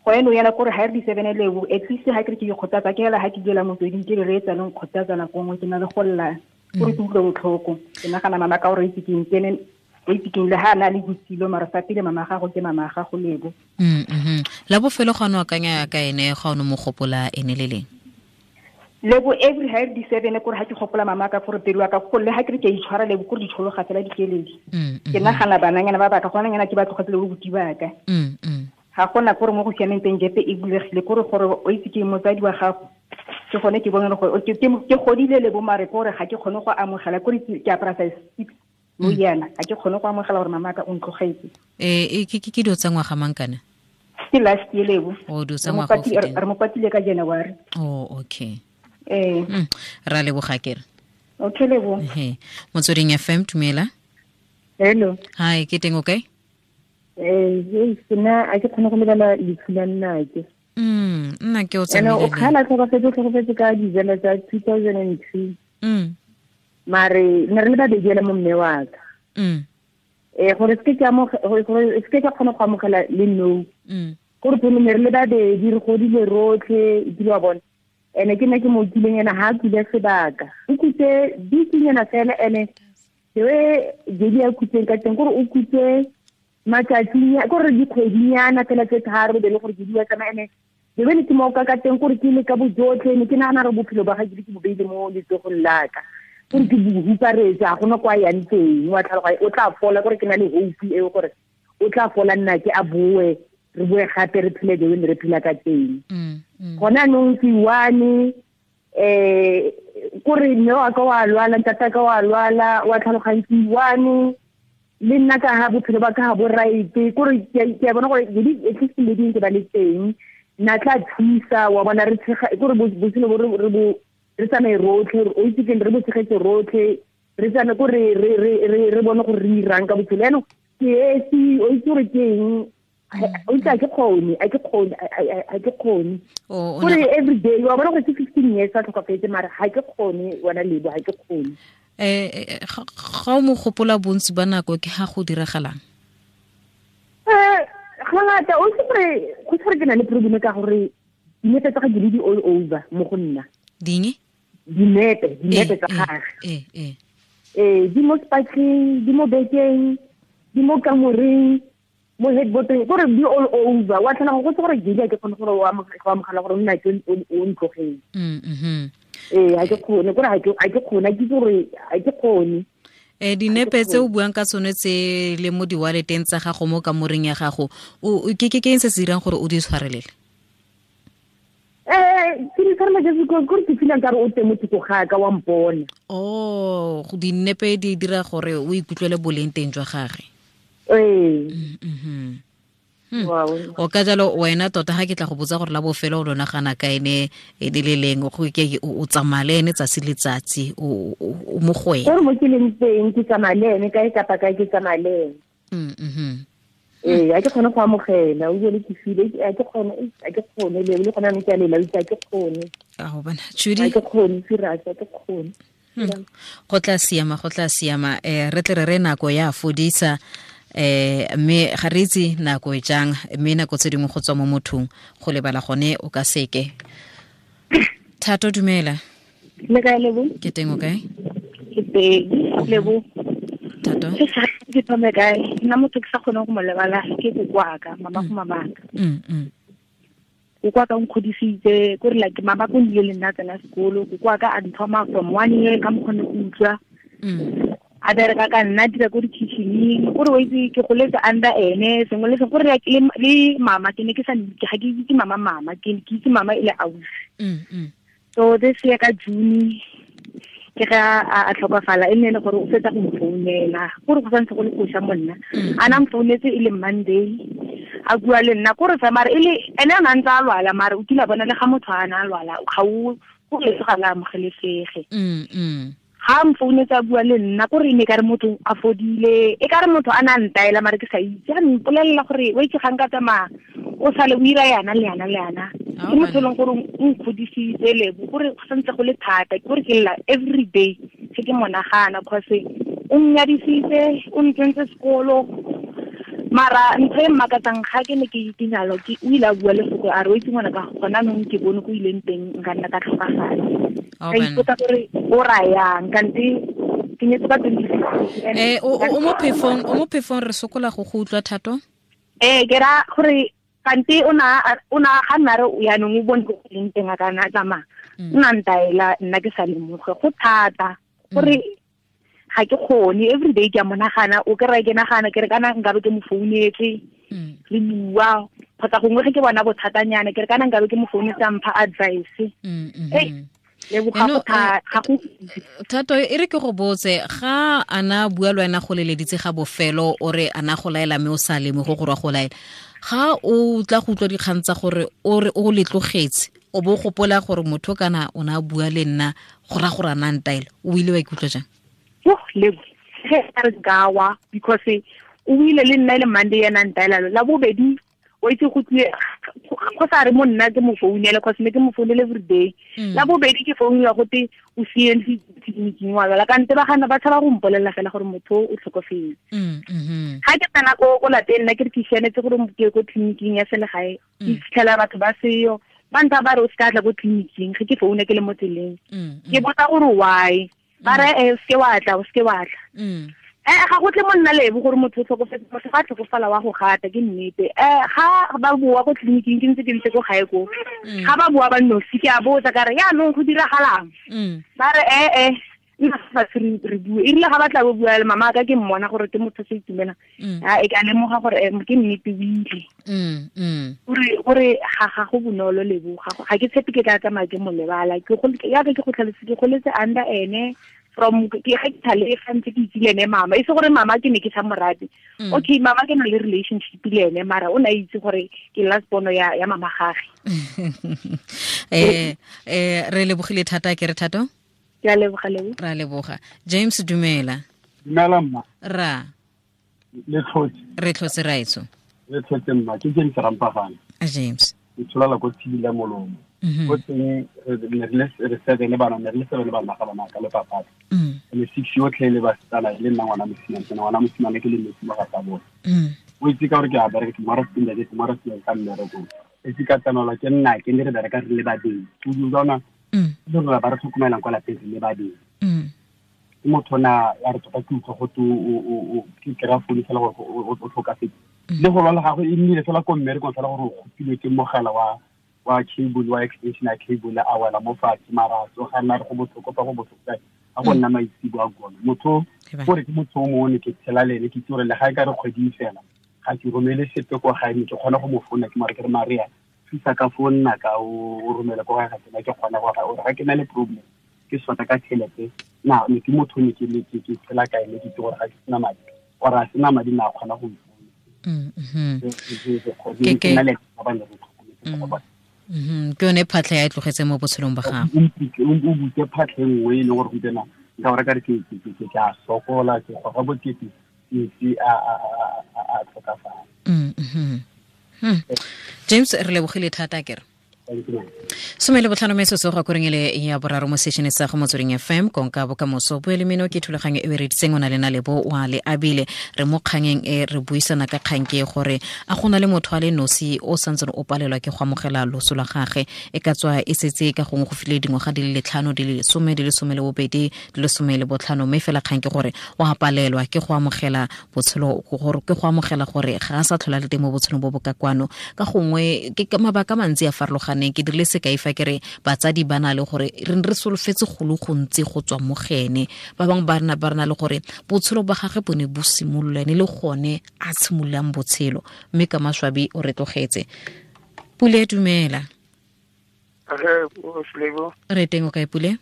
J: Go eno yana kore ha re di-7 leo, at least ha ke re ke ikgothatsa ke hela ha ke duela motsweding ke re reetsa le nkgothatsa nako nngwe ke na le go lla kore ke utlwe botlhoko. Ke nagana mama ka gore itse keng kene o itse keng le ha a na le bosilo mara fa pele mama gago ke mama gago Lebo.
A: La bofelo ga no akanya ka ene ga o no mo gopola ene le leng?
J: Lebo every ha re di-7 kore ha ke gopola mama ka gore pelo ya ka go le ha ke re ke a itshwara Lebo kore ditshologa fela dikeledi. Ke nagana bananyana ba baka gona nyana ke ba tlogetse le bobuti ba ka. Ga gona kore mo go siameng teng jepe e bulegile kore gore o itse ke motsadi wa gago ke gone ke bone gore ke godile Lebo mare kore ga ke kgone go amogela kore ke apara size 6 mo yana ga ke kgone go amogela gore mama ka o ntlogetse.
A: Ke dilo tsa ngwaga mang kana?
J: Ke last year Lebo.
A: O dilo tsa ngwaga o feteng.
J: Re mo patile ka January.
A: Oh okay. Ra leboga kere.
J: Okay Lebo.
A: Motsweding FM, dumela.
I: Hello.
A: Hi, ke teng o kae?
I: Nna a ke kgone go lebala lefu la nnake.
A: Nna ke o tsamaile.
I: O kgala tlhokafetse ka December tsa 2002. Mare ne re le babedi ela mo mme wa ka. Gore se ke ka kgona go amogela le no. Gore pele ne re le babedi re godile rotlhe ebile wa bona. Ene ke nna ke mo kileng ena ha a kule sebaka. O kutse bikinyana fela ene the way a kutseng ka teng gore o kutse matsatsinya gore dikgwedinyana fela tse tharo be le gore ke di tsamaya ene le bene ke mo ka ka teng gore ke le ka bojotlhe ne ke nagana re bophelo ba ga ke bo beile mo letsogong la ka gore ke bo huparetsa ga gona kwa yang teng wa tlhaloga o tla fola gore ke na le hope eo gore o tla fola nna ke a boe re boe gape re phele the way re phela ka teng. Gona nong ke one kore mme wa ka wa lwala ntata ka wa lwala wa tlhaloganya ke one le nna ka ha bophelo ba ka ha bo right kore ke a bona gore at least le ding ke ba le teng nna tla thusa wa bona re tshega kore botshelo bo re bo re tsamaye rotlhe o itse ke re bo tshegetse rotlhe re tsamaye kore re bone gore re irang ka botshelo eno ke esi o itse gore ke eng o itse a ke kgone gore every day wa bona gore ke 15 years a tlhokafetse mara ga ke kgone wena Lebo ga ke kgone.
A: Ga o mo gopola bontsi ba nako ke ga go diragalang?
I: Ga ngata o itse gore go tshware ke na le problem ka gore dinepe tsa ga di all over mo go nna.
A: Ding?
I: Dinepe tsa gagwe. Di mo spatleng, di mo bekeng, di mo kamoreng, mo headboardeng gore di all over wa tlhana go tse gore ke ke kgone gore o amogela gore nna ke o ntlogeng. Ga ke kgone gore ga ke kgone ke gore ga ke kgone.
A: Dinepe tse o buang ka tsone tse le mo di-walleteng tsa gago mo kamoreng ya gago ke eng se se dirang gore o di tshwarelele?
I: Ke di tshwarela just because gore ke feelang ka re o teng mo thoko ga ka wa mpona.
A: Oh, dinepe di dira gore o ikutlwele boleng teng jwa gagwe. O ka jalo wena tota ga ke tla go botsa gore la bofelo o lona gana ka ene e le leng go ke o tsamaya le ene tsatsi le tsatsi o mo go ene.
I: Gore mo ke leng teng ke tsamaya le ene kae kapa kae ke tsamaya le ene. Ee, a ke kgone go amogela o bile ke file a ke kgone le gona mme ke a lela a ke kgone.
A: A go bona Judy
I: a ke kgone serious a ke kgone.
A: Go tla siama re tle re nako ya fodisa mme ga re itse nako e jang mme nako tse dingwe go tswa mo mothong go lebala gone o ka seke. Thato dumela.
I: Le kae Lebo?
A: Ke teng o kae?
I: Ke teng Lebo.
A: Thato.
I: Ke thome kae? Nna motho ke sa kgone go mo lebala ke kokoaka mama go mamaka. Kokoaka o nkgodisitse ko re like mama ko nile le nna tsena sekolo kokoaka a nthoma from 1 year ka mokgone go utlwa. A bereka ka nna dira ko di-kitchening kore o itse ke goletse under ene sengwe le sengwe kore le mama ke ne ke sa ga ke itse mama ke itse mama e le ausi. So this year ka June ke ga a tlhokafala e nne le gore o fetsa go mfounela kore go santse go le koša monna a na mfounetse e le Monday a bua le nna kore fa mare e le ene a ntse a lwala mare o kile a bona le ga motho a na a lwala ga o go le ga la amogelesege. Ga mfounetse a bua le nna kore ne ka re motho a fodile e ka re motho a na ntaela mare ke sa itse a mpolelela gore o itse ga nka tsamaya o sale o ira yana le yana le yana ke motho e leng gore o nkgodisitse Lebo kore go santse go le thata kore ke lla every day se ke monagana cause o nnyadisitse o ntsentse sekolo mara ntho e mmakatsang ga ke ne ke nyalo ke o ile a bua lefoko a re o itse ngwana ka gona nong ke bone ko ileng teng nka nna ka tlhokafala. Ka ipotsa gore o rayang kante ke nyetse ka 2016.
A: O mo phefong re sokola go utlwa Thato.
I: Ke ra gore kante o na ga nna re yaanong o bone ko leng teng a kana tsamaya o na ntaela nna ke sa lemoge go thata gore ga ke kgone every day ke a monagana o ke ra ke nagana ke re kana nkabe ke mo founetse re bua kgotsa gongwe ge ke bona bothatanyana ke re kana nkabe ke mo founetse a mpha advice.
A: Thato e re ke go botse ga ana bua le wena go leleditse ga bofelo o re ana go laela mme o sa leme go gore go laela ga o tla go utlwa dikgang tsa gore o re o letlogetse o bo gopola gore motho kana o na bua le nna go ra gore ana ntaela o ile wa ikutlwa jang?
I: Lebo ge a re gawa because o ile le nna le Monday yana ntaela la bobedi o itse go tlile go sa re mo nna ke mo founele cause ne ke mo founele every day la bobedi ke founela go te o CNC tleliniking wa lwala kante ba gana ba tshaba go mpolelela fela gore motho o tlhokofetse. Ga ke tsena ko lapeng nna ke re ke sianetse gore ke ko tleliniking ya selegae ke fitlhela batho ba seyo ba ntha ba re o se ka tla ko tleliniking ge ke foune ke le mo tseleng ke botsa gore why ba re o seke wa tla o seke wa tla. Ga go tle mo nna Lebo gore motho o tlhokofetse motho ga tlhokofala wa go gata ke nnete. Ga ba boa ko tleliniking ke ntse ke ko gae ko ga ba boa ba nosi ke a botsa ka re yaanong go diragalang ba re nna fa re bue e rile ga ba tla bo bua le mama ka ke mmona gore ke motho se itumela a e ka lemoga gore ke nnete o ile gore ga go bonolo Lebo ga ke tshepe ke tla tsamaya ke mo lebala ke go yaka ke go tlhalose ke goletse under ene from ke ga ke thale ga ntse ke itse le ene mama e se gore mama ke ne ke sa morate. Okay mama ke na le relationship le ene mara o na itse gore ke last bono ya mama gage.
A: Re lebogile thata ke re Thato.
I: Ke a leboga Lebo.
A: Ra leboga. James dumela.
H: Dumela mma.
A: Ra.
H: Le tlhotse.
A: Re tlhotse raitso.
H: Le tlhotse mma ke James Rampagana.
A: James.
H: Ke tsholala ko tshila molomo. Go teng re seven bana ne re le seven bana ga bana ka le papa. Le six yotlhe le basetsana le nna ngwana mosimane ke ngwana mosimane ke le metsi mo ga tsa bone. O itse ka gore ke a bereka ke mara stinda ke mara stinda ka mmereko. E itse ka tsanola ke nna ke ne re bereka re le babedi. O utlwa le rona ba re tlhokomelang kwa lapeng re le babedi. Ke motho na ya re tota ke utlwa go te o ke kry-a founu fela gore o tlhokafetse. Le go lwala gagwe e nnile fela ko mmerekong fela gore o kgopilwe ke mogala wa cable wa extension ya cable a wela mo fatshe mara a tsoga nna re go botlhoko fa go botlhoko kae a go nna maitsebo a gone. Motho gore ke motho o mongwe ne ke tshela le ene ke itse gore le ga e ka re kgwedi fela ga ke romele sepe ko gae ne ke kgona go mo founa ke mare ke re Maria thusa ka fo nna ka o romela ko gae ga tsena ke kgona gore ga ke na le problem ke sota ka tšhelete na ne ke motho ne ke tshela ka ene ke itse gore ga ke sena madi or a sena madi na kgona go
A: Ke ke yone phatlha ya e tlogetse mo botshelong ba gago.
E: O butse phatlha e nngwe e leng gore gompieno nka gore ka re ke a sokola, ke goga bokete, ke a tlhokafala.
A: James, re lebogile thata kere. 15 metsotso go koreng ele ya boraro mo sešene sa go Motsweding FM konka bokamoso boele meno ke thulaganyo e reditseng o na le na lebo wa le abile re mo kgangeng e re buisana ka kgang ke gore a gona le motho a le nosi o santseng o palelwa ke go amogela loso la gagwe e ka tswa e setse ka gongwe go file dingwaga di le 5 di le 10 di le 12 di le 15 mme fela kgang ke gore o a palelwa ke go amogela botshelo gore ke go amogela gore ga a sa tlhola le teng mo botshelong bo bo ka kwano ka gongwe ke mabaka mantsi a farologaneng. Ke dirile sekai fa ke re batsadi ba na le gore re re solofetse go le gontsi go tswa mo gene ba bangwe ba rena ba rena le gore botshelo ba gagwe bo ne bo simolola ene le gone a tshimololang botshelo mme ka maswabi o re tlogetse. Pule, dumela. Re teng o kae Pule?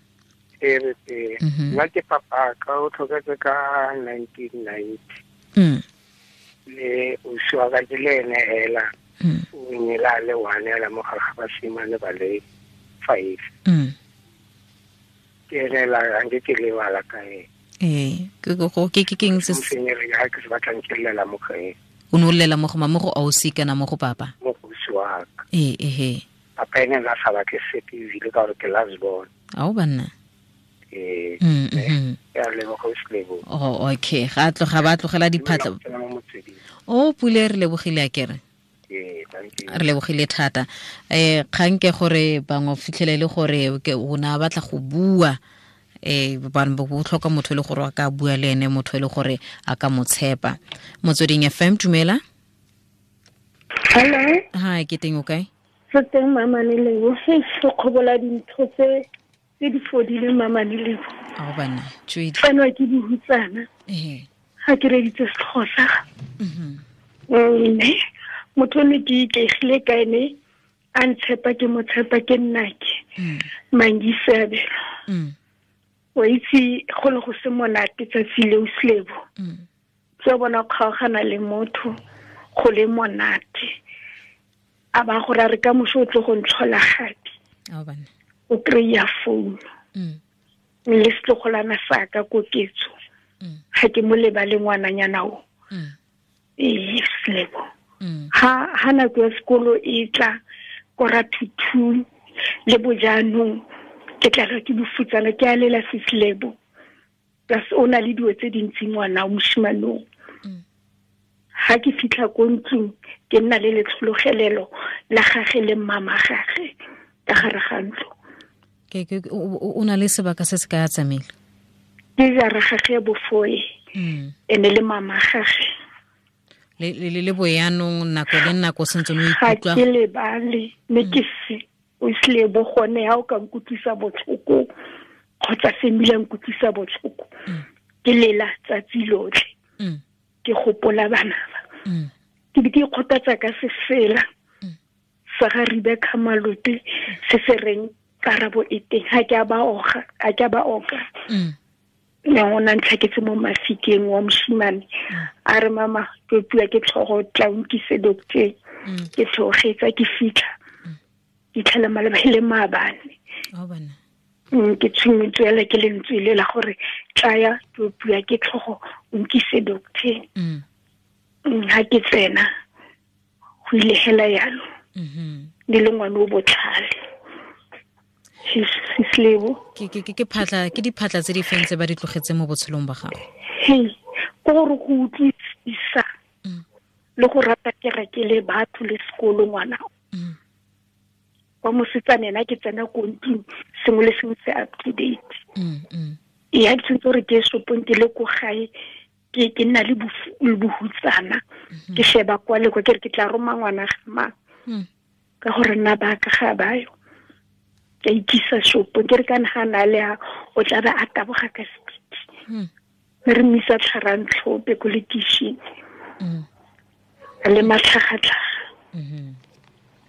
G: Re teng. Nna ke papa ka o tlhoketse ka 1990. Le o swa ka ke le ene hela. O nyela le one la mo gare ga basimane ba le 5. Ke ene la nke ke lebala ka ene.
A: Ke go ke ke keng se
G: se ke se batlang ke lela mo go ene.
A: O ne o lela mo go mama go ausi kana mo go papa?
G: Mo go ausi wa ka. Papa ene la sa batle sepe ebile ka gore ke last born.
A: Ao banna.
G: Ya leboga o selebo.
A: Oh, okay. Ga tloga ba tlogela diphatla. O Pule, re lebogile a kere. Re lebogile thata. Kgang ke gore bangwe fitlhele le gore o na batla go bua bana bo tlhoka motho le gore a ka bua le ene, motho le gore a ka mo tshepa. Motsweding FM, dumela.
K: Hello.
A: Hi, ke teng o kae?
K: Re teng mama ne lebo. Re kgobola dintho tse di fodileng mama ne lebo.
A: Ao bana, tšwedi.
K: Tseno ke dihutsana. Ga ke reditse setlhogo sa. Mme motho ne ke ikaegile ka ene a ntshepa ke mo tshepa ke nnake. Mangisabelo. O itse go le go se monate tsatsi leo selebo. Ke bona kgaogana le motho go le monate. A ba gore a re ka moso o tlo go ntlhola gape. O kry-a founu. Le setlogolana sa ka koketso. Ga ke mo lebale ngwananyana o. Ee, selebo. Ha nako ya sekolo e tla kora 2 le bojaanong ke tla ke bofutsana ke a lela seslebo. Plus o na le dilo tse dintsi ngwana o moshimanong. Ha ke fitlha ko ntlong ke nna le letlhologelelo la gage le mmama gage ka gare ga ntlo.
A: Ke o na le sebaka se se ka tsamaile.
K: Ke jara gage bofoe. Ene le mama gage.
A: Le le boyanong nako le nako sentse no ikutlwa.
K: Ga ke lebale mme ke se o selebo gone ha o ka nkutlwisa botlhoko kgotsa se mmila nkutlwisa botlhoko. Ke lela tsatsi lotlhe. Ke gopola bana ba. Ke be ke ikgothatsa ka sefela sa ga Rebecca Malope se se reng karabo e teng ha ke a ba oga, ha ke a ba oka. Ne o na ntlhaketse mo mafikeng wa moshimane a re mama ke pua ke tlhogo tla nkise doctor. Ke tlhogetsa ke fitlha. Ke tlhela maleba le maabane. Ke tshwenyetswe ke lentswe le la gore tlaya ke pua ke tlhogo nkise doctor. Ha ke tsena go ile hela yalo. Le le ngwana o botlhale. Sislebo.
A: Ke phatla ke diphatla tse di feng tse ba di tlogetse mo botshelong ba gago?
K: Ke gore go utlwisisa le go rata kereke le batho le sekolo ngwana. Wa mosetsana ena ke tsena ko ntlong sengwe le sengwe se up to date. Ya ke tshwanetse gore ke shopong ke le ko gae ke nna le bohutsana. Ke sheba kwa le kwa ke re ke tla roma ngwana ga mang. Ka gore nna ba ka ga bayo. Ke ikisa shopong ke re kana ga na le a o tla ba a taboga ka speed. Re mmisa tlharang tlhope ko lekishini. Le matlhagatlhaga.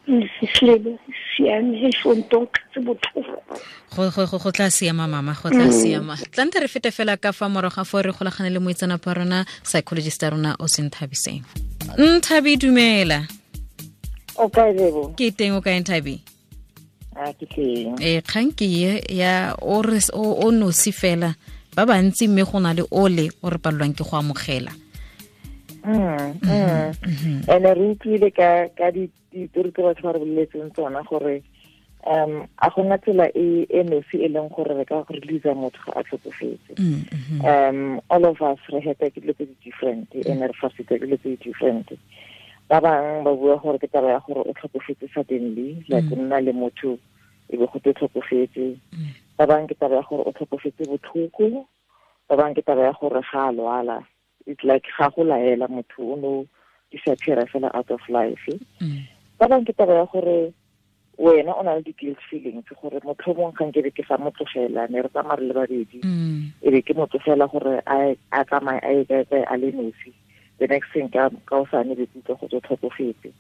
K: Sislebo siame fontong tse botlhoko.
A: Go tla siama mama, go tla siama. Tlante re fete fela ka fa morago ga fo re golagane le moitseanape wa rona psychologist ya rona o Senthabiseng. Nthabi dumela.
I: O kae Lebo?
A: Ke teng, o kae Nthabi?
I: A ke teng.
A: Kgang ke ya o re o nosi fela ba bantsi mme go na le ole o re palelwang ke go amogela.
I: Ene re utlwile ka ditori tse batho ba re boleletseng tsona gore a gona tsela e nosi e leng gore re ka go release motho ga a tlhokofetse. All of us re heta ke dilo tse di different and re fasitse ke dilo tse di different. Ba bangwe ba bua gore ke taba ya gore o tlhokofetse suddenly, like o nna le motho e be go te tlhokofetse. Ba bangwe ke taba ya gore o tlhokofetse botlhoko, ba bangwe ke taba ya gore ga a lwala. It's like ga go laela motho o no disappear fela out of life. Ba bangwe ke taba ya gore wena o na le di-guilt feelings gore motlhomong ga nkebe ke sa mo tlogela, ne re tsamaya re le babedi, e be ke mo tlogela gore a tsamaye a ye kae a le nosi. The next thing ka o sa ne be ke utlwa go tswa tlhokofetse.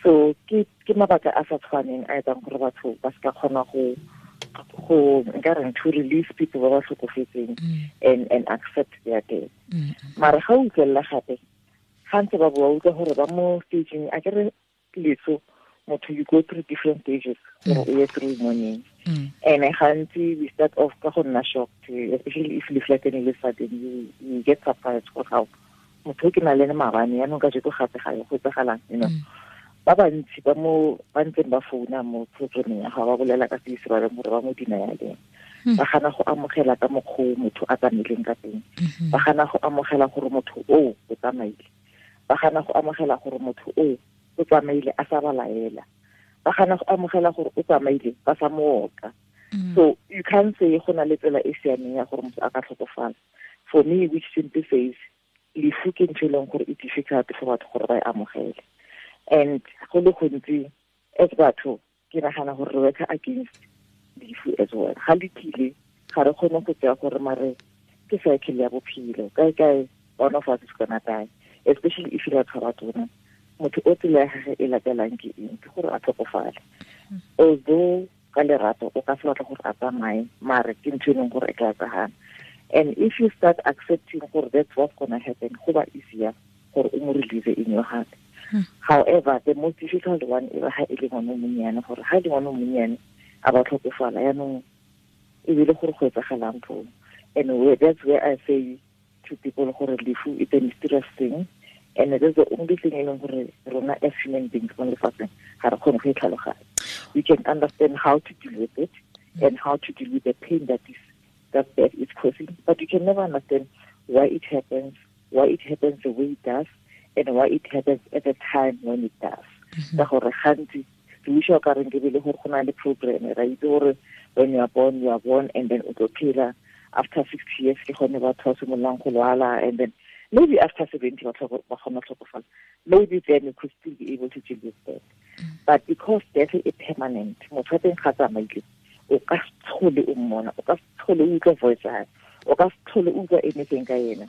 I: So ke mabaka a sa tshwaneng a etsang gore batho ba se ka kgona go nka reng to release people ba ba tlhokofetseng and accept their death. Mara ga o utlwelela gape ga ntse ba bua utlwa gore ba mo stageng a ke re leso motho you go through different stages gore o ye through mourning. And gantsi we start off ka go nna shocked, especially if you flatten le sudden you get surprised gore how motho ke na le ene maabane yaanong kajeko gape ga go etsagalang, you know. Ba bantsi ba mo ba ntseng ba founa mo programmeng ya gago ba bolela ka se se ba leng gore ba mo denialeng. Ba gana go amogela ka mokgwa motho a tsamaileng ka teng. Ba gana go amogela gore motho o o tsamaile. Ba gana go amogela gore motho o o tsamaile a sa ba laela. Ba gana go amogela gore o tsamaile ba sa mo oka. So you can't say go na le tsela e siameng ya gore motho a ka tlhokofala. For me, which simply says lefu ke ntho e leng gore e difficult for batho gore ba e amogele. And go le gontsi as batho ke nagana gore re work against lefu as well. Ga le tlile ga re kgone go tsaya gore mare ke cycle ya bophelo, kae kae one of us is gonna die, especially if you are tshwara motho o tsela ya gagwe e latelang ke eng, ke gore a tlhokofale. Although ka lerato o ka se batla gore a tsamaye, mare ke ntho e leng gore e tla etsagala. And if you start accepting gore that's what's gonna happen, go ba easier gore o mo release in your heart. However, the most difficult one is ha e le ngwana o monnyane, gore ha e le ngwana o monnyane a ba tlhokofala yaanong e bile gore go etsagalang foo. And that's where I say to people gore lefu it's a mysterious thing, and it is the only thing e leng gore rona as human beings mo lefatsheng ga re kgone go e tlhaloganya. We can understand how to deal with it and how to deal with the pain that death is causing, but you can never understand why it happens, why it happens the way it does, and why it happens at the time when it does. Ka gore gantsi re utlwa ka reng ke bile gore go na le program, ra itse gore when you are born, and then o tlo phela after 60 years ke gone batho ba simololang go lwala, and then maybe after 70 ba kgona tlhokofala. Maybe then you could still be able to deal with that. But because death is permanent, motho wa teng ga tsamaile, o ka se tlhole o mmona, o ka se tlhole o utlwa voice ya hae, o ka se tlhole o utlwa anything ka ena.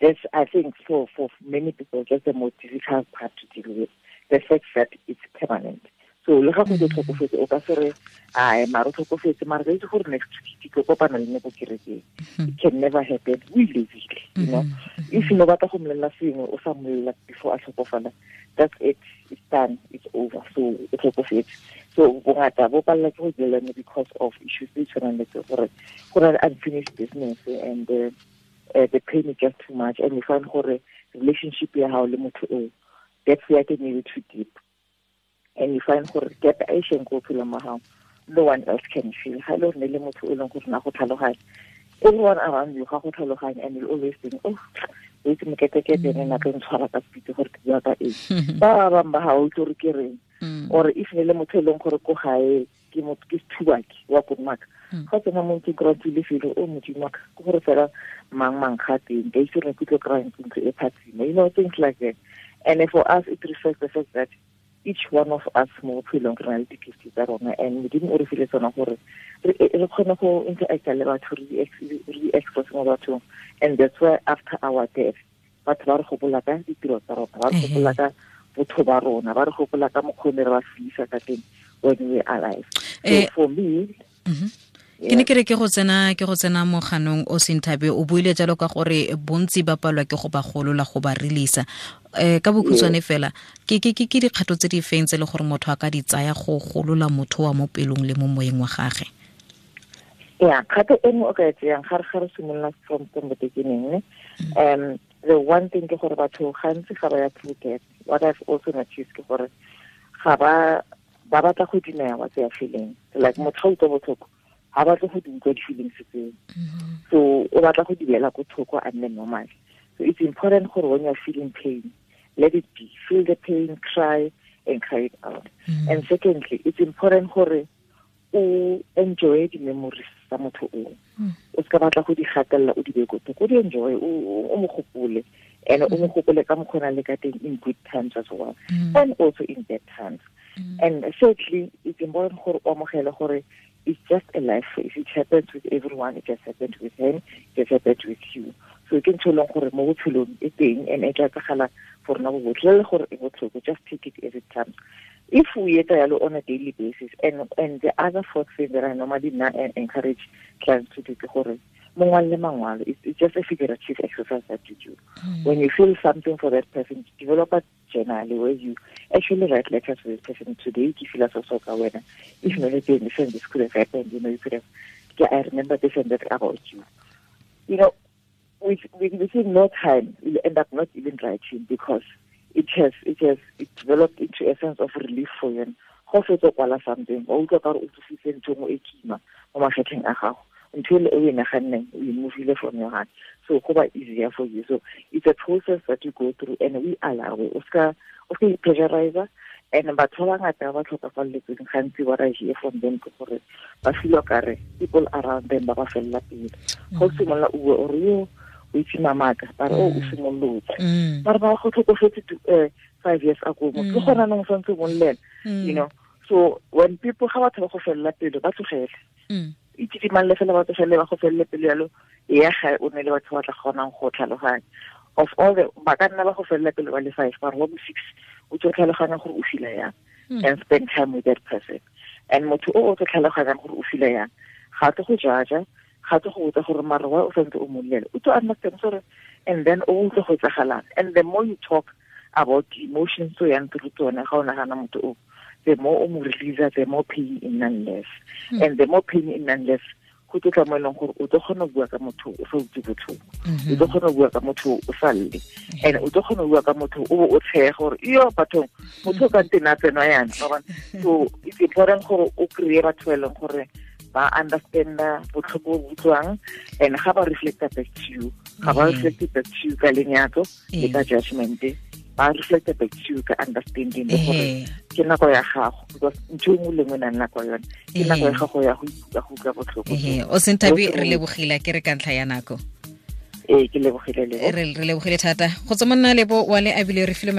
I: That's, I think, for many people, that's the most difficult part to deal with, the fact that it's permanent. So, le ga go tlhokofetse, o ka se re, ai, mara o tlhokofetse, mara re itse gore next week ke kopana le ne ko kerekeng. It can never happen. We live it, you know. If you no batla go mmolelela sengwe, o sa mmolelela before a tlhokofala, that's it. It's done. It's over. So, o tlhokofetse. So, bongata bo palela ke go dealana because of issues tse tshwanang le tse gore go na le unfinished business and the pain is just too much, and you find gore relationship ya hao le motho o, that's where it may be too deep, and you find gore gap e sheng go phela mo hao, no one else can feel. Ha le le motho o leng gore na go tlhaloganya, everyone around you ga go tlhaloganya, and you always think, oh, o itse moketekete ene na tlo ntshwara ka speed gore ke bua ka eng. Ba bangwe ba ha o itse gore ke reng, or if ne le motho e leng gore ko gae ke motho ke sethubaki wa Kodumaka, ga tsena mo ntlong kry-a tswile felo, o modimo wa ka, ke gore fela mang ga teng, ka itse gore ke tlo kry-a ntlo e phatsima, you know, things like that. And for us, it reflects the fact that each one of us mo bophelong re na le di-gift tsa rona, and modimo o re file tsona gore re kgone go interacta le batho, re di-express mo bathong. And that's why after our death, batho ba re gopola ka ditiro tsa rona, ba re gopola ka botho ba rona, ba re gopola ka mokgwa o ne re ba fisa ka teng when we are alive. So for me,
A: Ke ne ke re ke go tsena mo ganong o Senthabe o buile jalo ka gore bontsi ba palwa ke go ba golola go ba releasa. Ka bokhutshwane fela ke dikgato tse di feng tse le gore motho a ka di tsaya go golola motho wa mo pelong le mo moyeng wa gagwe?
I: Yeah, kgato e nngwe o ka e tseyang ga re simolola from the beginning, the one thing ke gore batho gantsi ga ba ya through death. What I've also noticed ke gore ga ba batla go deny what they are feeling. Like motho ga utlwa botlhoko ga batle go di utlwa di-feelings tseo. So o batla go di beela ko thoko a nne normal. So it's important gore when you're feeling pain, let it be. Feel the pain, cry and cry it out. And secondly, it's important gore o enjoy the memories tsa motho o. O ska batla go di gatelela o di be ko thoko, o di enjoy, o mo gopole. And o mo gopole ka mokgona le ka teng in good times as well. And also in bad times. And thirdly, it's important gore o amogele gore it's just a life phase. It happens with everyone. It just happened with him. It just happened with you. So ke ntho e leng gore mo botshelong e teng and e tla etsagala for rona bo botlhe le gore e botlhoko. Just take it as it comes. If we etsa yalo on a daily basis, and the other fourth thing that I normally encourage clients to do ke gore mongwe le mangwalo, it's just a figurative exercise that you do. When you feel something for that person, develop a journal where you actually write letters to this person. Today, if you if not, this could have happened, you know, you could have, yeah, I remember this and that about you. You know, within no time, you'll end up not even writing because it developed into a sense of relief for you. Go fetsa kwala something, o utlwa ka gore o tsositse ntho nngwe e kima mo magetleng a gago. Until we move it from your heart. So go ba easier for you. So it's a process that you go through and we allow it. Oscar pressurizer and batho ba bangata ba tlhokafaletsweng gantsi what I hear from them ke gore ba feel kare people around them ba ba fella pele. Go simolola o bue o re yo o itse mamaka ba re o simolotse. Ba re ba go tlhokofetse 5 years ago mo ke gona nong santse mo llela, you know. So when people ga batho ba go fella pele ba tlogele. Itse fela batho fela ba go felle pele yalo ya ga o ne le batho ba tla kgonang go tlhaloganya. Of all the ba ka nna ba go felle pele ba le 5 ba re wa bo 6 o tlo tlhaloganya gore o fila yang and spend time with that person. And motho o tlo tlhaloganyang gore o fila yang ga tlo go judge, ga tlo go botsa gore mara wa o santse o mollela, o tlo understand gore and then o utlwe go etsagalang. And the more you talk about the emotions so yang through tsone ga o nagana motho o, the more o mo release, the more pain in none less. And the more pain in none less, go tlo tla mo eleng gore o tlo kgona go bua ka motho o sa utlwe botlhoko, o tlo kgona go bua ka motho o sa lle, and o tlo kgona go bua ka motho o bo o tshega gore iyo bathong motho o ka ntena tsenwa yana. So it's important gore o kry-e batho ba e leng gore ba understanda botlhoko bo utlwang and ga ba reflecta back to you, ga ba reflecte back to you ka lenyatso le ka judgment, ba reflecta back to you ka understanding le gore ke nako ya gago because ntho e nngwe le nngwe e nang nako yone ke nako ya gago ya go utlwa botlhoko.
A: O Senthabi re lebogile ke re ka ntlha ya nako.
I: Ee, ke lebogile le
A: re lebogile thata go tswa monna Lebo wa le abile re file.